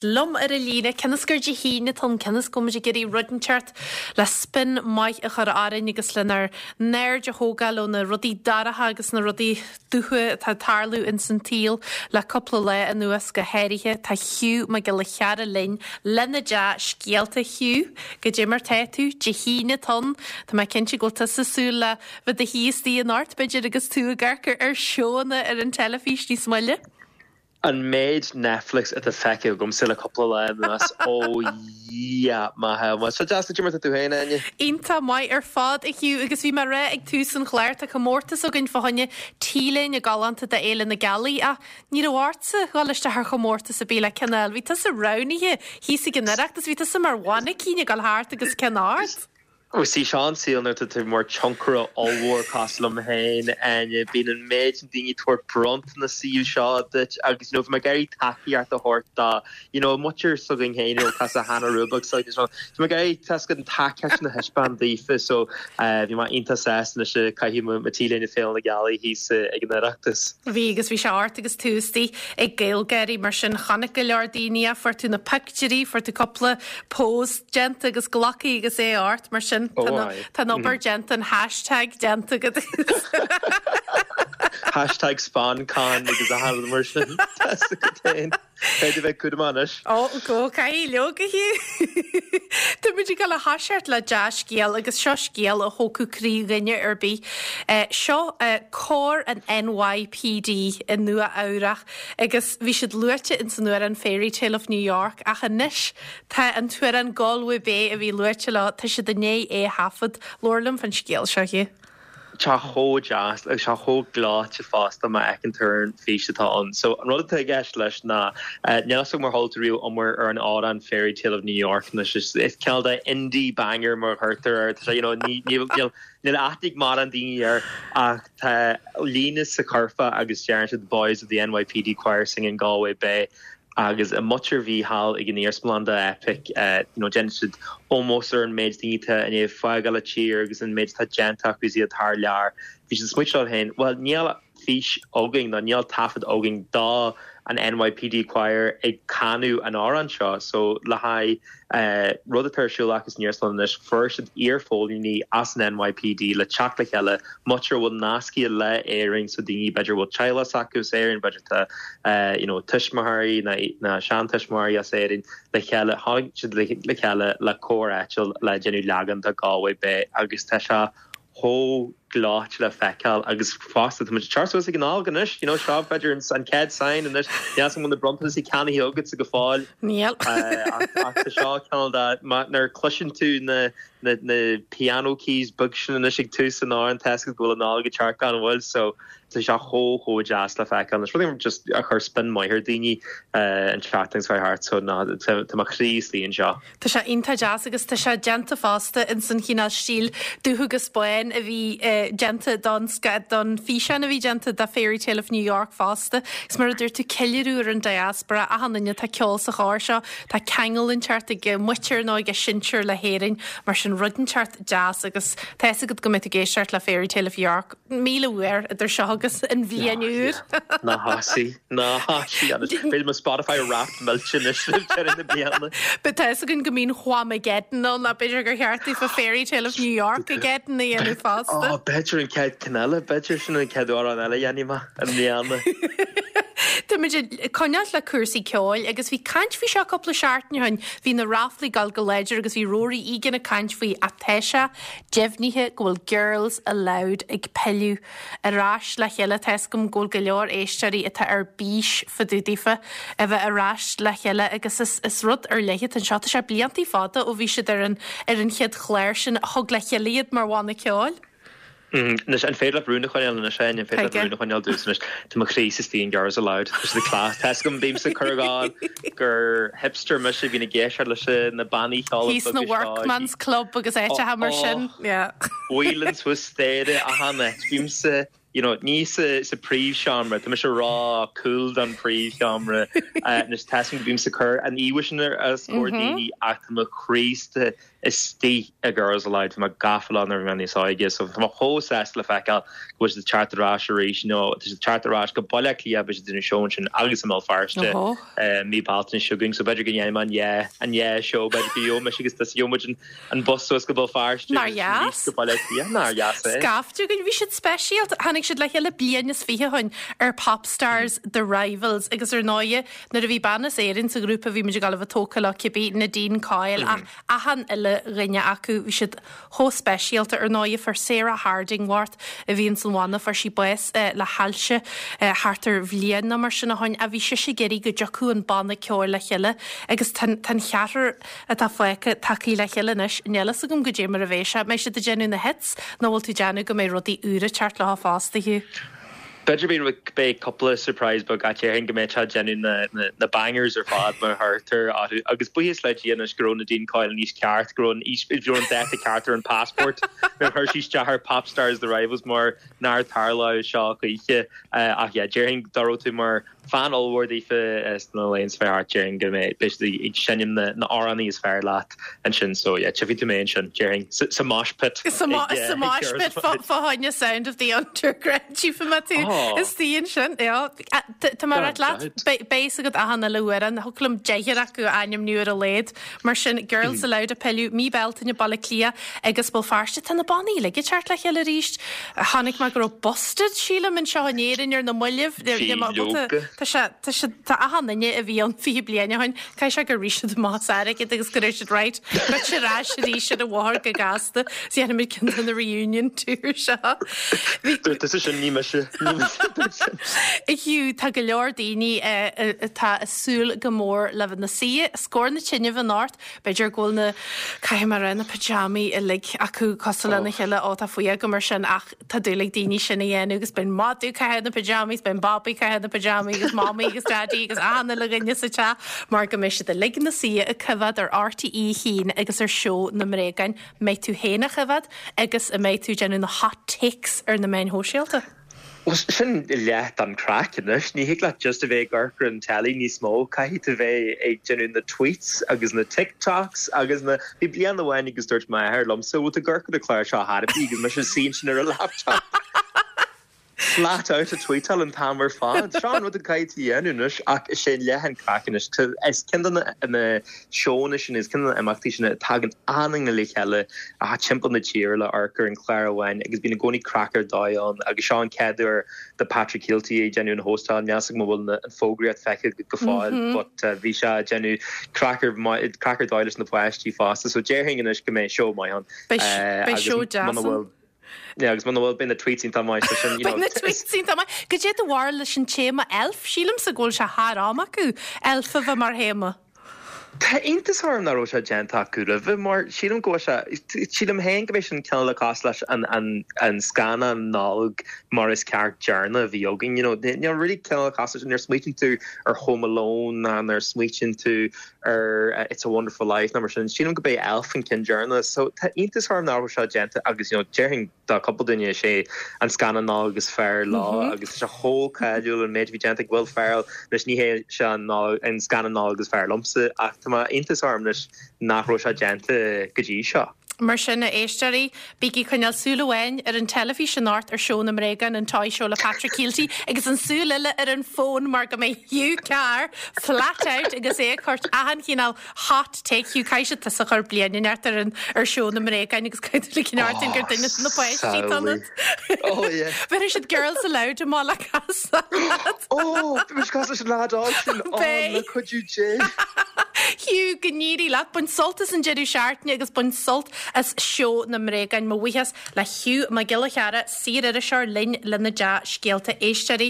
Liom ar an líne, cionn is gur Dé hAoine atá ann, cionn is go bhfuil muid ag iarraidh rud inteacht le spin maith a chur orainn agus lenár n-aird a thógáil ó na rudaí dorcha agus na rudaí dubha atá ag tarlú ins an tsaol le cúpla lá anuas go háirithe. Tá Hugh Mac Giolla Chearra linn lena dea-scéalta. Hugh, goidé mar tá tú? Dé hAoine atá ann. Tá mé cinnte go bhfuil tusa ag súil le bheith i do shuí istigh anocht, b'fhéidir, agus tú ag amharc ar seóanna ar an teilifís níos moille. An méid Netflix atá feicthe agamsa le cúpla lá anuas, ó Dhia maith é. Bhuel, seo deas, goidé mar tá tú féin, Áine? Iontach maith ar fad, a Hugh, agus bhí mé ag rá ag tús an chláir, tá comórtas againn fá choinne T-léine galánta do Fhéile na Gealaí, ach ní raibh ortsa dhul isteach ar chomórtas ar bith le ceann a fháil. Bhí tusa roghnaithe thíos ag an Oireachtas, bhí tusa mar mhainicín ag dul thart agus ceann ort. Ó sea, seo an saol nuair atá tú mar tionchaire ollmhór cosúil liom féin, Áine, bíonn an méid sin daoine ag tabhairt bronntanas saoil seo duit agus you know bhí mé ag iarraidh tacaíocht a thabhairt do you know muintir s'againn féin you know cosúil le Hannah Rubach so you know bhí mé ag iarraidh tá a fhios agat an tacaíocht sin a thaispeáint daofa so bhí mé iontach sásta anois ag caitheamh mo mo T-léine Féile na Gealaí thíos ag an Oireachtas. Bhí agus bhí sé ort agus tú istigh ag GaelGáirí mar sin chonaic go leor daoine é, fuair tú na pictiúirí, fuair tú cúpla pose déanta agus glactha agus é ort mar sin tá an obair déanta an hashtag déanta agat. Hashtag sponcon agus a leithéid mar sin tá a fhios agat féin. Féidir bheith cúramach anois. Ó go caithfidh leoga Hugh. Tá muid ag dul a thoiseacht le dea-scéal agus seo scéal a thógfadh croí dhuine ar bith. Seo cór an NYPD i Nua Eabhrach agus bhí siad luaite ins an amhrán Fairytale of New York ach anois Tá an t-amhrán Galway Bay a bhí luaite leo, tá siad i ndiaidh é a thaifead. Labhair liom fán scéal seo, Hugh. Tá chomh deas agus tá chomh gleoite fosta má fheiceann tú ar an fís atá ann. So an rud atá i gceist leis ná, níl a fhios agam ar chuala tú riamh iomrá ar an amhrán Fairytale of New York anois is is cineál de indie banger mar a chuirtear air. Tá sé you know ní níl níl níl aithne ag mórán daoine air ach tá líne sa churfá agus deireann siad boys of the NYPD choir singing Galway Bay Agus an mhuintir a bhí thall ag an iarsmalann do Eipic, you know, déanann siad ómós ar an méid daoine atá i ndiaidh fágáil an tír agus an méid atá déanta acu is iad thar lear. Bhí siad ag smaoitiú leo féin, bhuel, níl fís againn nó níl taifead againn do an NYPD Choir ag canadh an amhráin seo. So le haghaidh rud atá ar siúl acu san iarsmalann anois, fuair siad iarphóilíní as an NYPD le teacht le chéile, muintir a bhfuil nascaithe le Éirinn, so daoine b'fhéidir a bhfuil teaghlach s'acu as Éirinn, b'fhéidir tá you know tuismitheoirí nó seantuismitheoirí as Éirinn le chéile, tháinig siad le chéile le cór áitiúil le déanamh leagan de Galway Bay agus tá sé chomh gleoite le feiceáil agus fosta tá muid ag teacht suas ag an Nollaig anois, you know, seo b'fhéidir an chéad sign anois, níl a fhios agam an bhfuil na bronntanais ceannaithe agatsa go fóill. Níl. Ach tá seo cineál de, nuair a chloiseann tú na na na piano keys beag sin anois ag tús an amhráin, tá a fhios agat go bhfuil an Nollaig ag teacht gan mhoill so tá sé chomh chomh deas le feiceáil anois. Rud just a chuir spin maith ar daoine an tseachtain seo thart so ná tá mo chroí istigh anseo. Tá sé iontach deas agus tá sé déanta fosta ins an chineál stíl dubh agus bán a bhí déanta don don físeán a bhí déanta do Fairytale of New York fosta. Agus mar a dúirt tú, ceiliúradh ar an diaspora, achan duine atá ag ceol sa chór seo, tá ceangal inteacht ag a muintir nó ag a sinsir le hÉirinn, mar sin rud inteacht deas agus tá a fhios agat go mbeidh tú ag éisteacht le Fairytale of York 1,000 uair idir seo agus an bhliain úr. Ná thosaigh. Ná thosaigh anois. Beidh mo Spotify Wrapped millte anois roimh deireadh na bliana. But tá fhios againn go mbíonn Whamageddon ann, ach b'fhéidir gur cheart daofa Fairytale of New York-ageddon a dhéanamh fosta. Ó, b'fhéidir an chéad ceann eile, b'fhéidir sin an chéad amhrán eile a dhéanfaidh mé i mbliana. Tá muid ag coinneáil le cúrsaí ceoil agus bhí caint faoi seo cúpla seachtain ó shin. Bhí na ráflaí ag dul go láidir agus bhí Rory Egan ag caint faoi ach tá sé deimhnithe go bhfuil Girls Aloud ag pilleadh ar ais le chéile. Tá 'fhios agam go bhfuil go leor éisteoirí atá ar bís fá dtaobh daofa a bheith ar ais le chéile agus is is rud ar leith atá anseo. Tá sé bliantaí fada ó bhí siad ar an ar an chéad chlár sin a thug le chéile iad mar bhanna ceoil. Anois, an féidir leat rún a choinneáil anois, Áine? An féidir leat rún a choinneáil domhsa anois? Tá mo chroí istigh in Girls Aloud. Tá siad class. Tá 'fhios agam, bímse ag cur a ghabháil gur hipster mise a bhíonn ag éisteacht leis na bannaí ceoil Thíos sna beaga seo. Workman's Club agus áiteacha mar sin. Yeah. Whelan suas staighre achan áit. Bímse. you know, ní sa sa príomhsheomra, tá mise ró-cool don príomhsheomra, anois tá 'fhios agam go bímse ag cur an íomha sin ar os comhair daoine ach tá mo chroí istigh i Girls Aloud, bhí mé gafa leo nuair a bhí mé níos óige so tá mé chomh sásta le feiceáil go bhfuil siad ag teacht ar ais arís, you know, tá siad ag teacht ar ais go Baile Átha Cliath, beidh siad ag déanamh seó ansin agus i mBéal Feirste mí Bealtaine seo chugainn so b'fhéidir go ndéanfaidh mé an dhá an dhá seó, b'fhéidir go gheobhaidh mise agus tusa gheobhaidh muid an An bus suas go Béal Feirste Nár dheas? go Baile Átha Cliath. Nár dheas é? Scaifte againn. Bhí siad speisialta. Tháinig siad le chéile bliain is fiche ó shin ar Popstars The Rivals agus ar ndóighe nuair a bhí bean as Éirinn sa ghrúpa bhí muid ag gabháil a bheith tógtha leo cibé, Nadine Coyle ach achan uile dhuine acu bhí siad chomh speisialta. Ar ndóighe fuair Sarah Hardingworth a bhí ins an bhanna fuair sí bás le hailse thart ar bhliain nó mar sin ó shin ach bhí sise ag iarraidh go dtiocfadh an banna ceoil le chéile agus tá an cheathrar atá fágtha tagtha le chéile anois. Níl fhios agam goidé mar a bheidh sé. Mbeidh siad ag déanamh na hits nó bhfuil tú ag déanamh go mbeidh rudaí úra ag teacht leo fosta, Hugh? B'fhéidir beidh cúpla surprise beag ach déarfainn go mbeidh siad ag déanamh na na bangers ar fad mar a chuirtear orthu. Agus buíochas le Dia anois go raibh Nadine Coyle in aois ceart, go raibh an aois, go raibh an dáta ceart ar an passport nuair a chuir sí isteach ar Popstars The Rivals mar nár tharlódh seo choíche. Ach yeah, déarfainn dá raibh tú mar Fan ollmhór daofa sna laethanta seo thart, déarfainn go mbeidh beidh siad ag seinm na na amhránaí is fearr leat ansin so yeah tchífidh tú mé ansin déarfainn sa sa mosh pit Sa mo ag sa mosh pit fá fá choinne Sound of the Underground tchífidh mé tú Oh. istigh ansin yeah. Tá mé ag rá leat beidh beidh fhios agat achan uile amhrán thiocfadh liom deichniúr acu a ainmniú ar a laghad Mar sin Girls Aloud ag pilleadh mí Bealtaine Baile Átha Cliath agus Béal Feirste tá na bannaí uilig ag teacht le chéile arís. Chonaic mé go raibh Busted, sílim, anseo in Éirinn ar na mallaibh. Bhí leoga. Tá sé, tá sé, tá achan duine a bhí ann 20 bliain ó shin, caithfidh sé gur rith siad amach as airgead agus go raibh siad right, goitse ar ais arís ar an bhóthar go gasta. Is dhéanfaimid ceann de na reunion tour seo. Bhí. Dúirt tusa sin, ní mise. Ní mise a dúirt sin. Hugh, tá go leor daoine atá ag súil go mór le bheith ina suí os comhair na tine anocht. B'fhéidir go bhfuil na, caithfidh mé a rá, na pyjamaí uilig acu cosúil lena chéile, ó tá fuath agam air sin ach tá dúil ag daoine sin a dhéanamh agus beidh madadh ag caitheamh na pyjamas, beidh an babaí ag caitheamh na pyjamaí agus mamaí agus daidí agus achan uile dhuine sa teach mar go mbeidh siad uilig ina suí ag coimhéad ar RTÉ 1 agus ar Seó na mBréagán. Mbeidh tú féin á choimhéad agus an mbeidh tú ag déanamh na hot takes ar na meáin shóisialta? Bhuel, sin leath den chraic anois. Ní thig leat just a bheith ag amharc ar an teilí níos mó. Caithfidh tú bheith ag déanamh na tweets agus na TikToks agus na. Bhí bliain amháin agus dúirt m'athair liomsa, bhfuil tú ag amharc ar an chlár seo ar bith agus mise ag suí ansin ar an laptop. Flat out ag tweetáil an t-am ar fad. Seo an rud a caithfidh tú a dhéanamh anois ach is é leath an craic anois. Is ceann de na seónna sin, is ceann de na imeachtaí sin a tagann achan duine le chéile timpeall na tíre le amharc ar an chlár amháin agus bíonn i gcónaí craic ar dóigh ann agus seo an chéad uair do Patrick Kielty ag déanamh an hóstáil. Níl 'fhios agam an bhfuil an fógraíocht feicthe agat go fóill but bhí sé ag déanamh craic ar craic ar dóigh leis na páistí fosta so déarfainn anois go mbeidh seó maith ann. Beidh seó deas ann. Yeah, agus muna bhfuil beidh na tweets iontach maith so sin, you know. Beidh na tweets iontach maith. Goidé do bharúil leis an téama elf? Sílimse go bhfuil sé thar am acu elf a bheith mar théama. Tá iontas orm nach raibh sé déanta acu roimhe mar sílim go bhfuil sé, sílim féin go mbeidh sin cineál le cosúil leis an, an, an scannán Nollag mar is ceart deireanach a bhí againn, you know. Níl really cineál le cosúil leis, nuair a smaoitíonn tú ar Home Alone ná nuair a smaoitíonn tú ar It's a Wonderful Life nó mar sin, sílim go b'é Elf an ceann deireanach. So tá iontas orm nach raibh seo déanta agus you know déarfainn do cúpla duine is é an scannán Nollag is fearr leo agus tá sé chomh cáiliúil an méid a bhí déanta ag Will Ferrell. Anois ní hé seo an an scannán Nollag is fearr liomsa ach tá mé iontas orm anois nach raibh sé déanta go dtí seo. Mar sin, a éisteoirí, bígí ag coinneáil súil amháin ar an teilifís anocht ar Seó na mBréagán, an Toy Show le Patrick Kielty, agus an súil eile ar an bhfón mar go mbeidh Hugh Carr flat out agus é ag cur achan chineál hot take. Hugh, caithfidh siad tusa a chur bliain inteacht ar an ar Seó na mBréagán agus caithfidh tú ligean ort gur duine de na páistí atá ionat. Oh yeah. Bhéarfaidh siad Girls Aloud amach le casadh leat. Oh, bhí mise cosúil leis an leaid óg sin. Oh, Beidh. le cuidiú Dé. Hugh, go n-éirí leat. Bain sult as an deireadh seachtaine agus bain sult as Seó na mBréagán. Mo bhuíochas le Hugh Mac Giolla Chearra, saor-iriseoir linn lena dea-scéalta éisteoirí.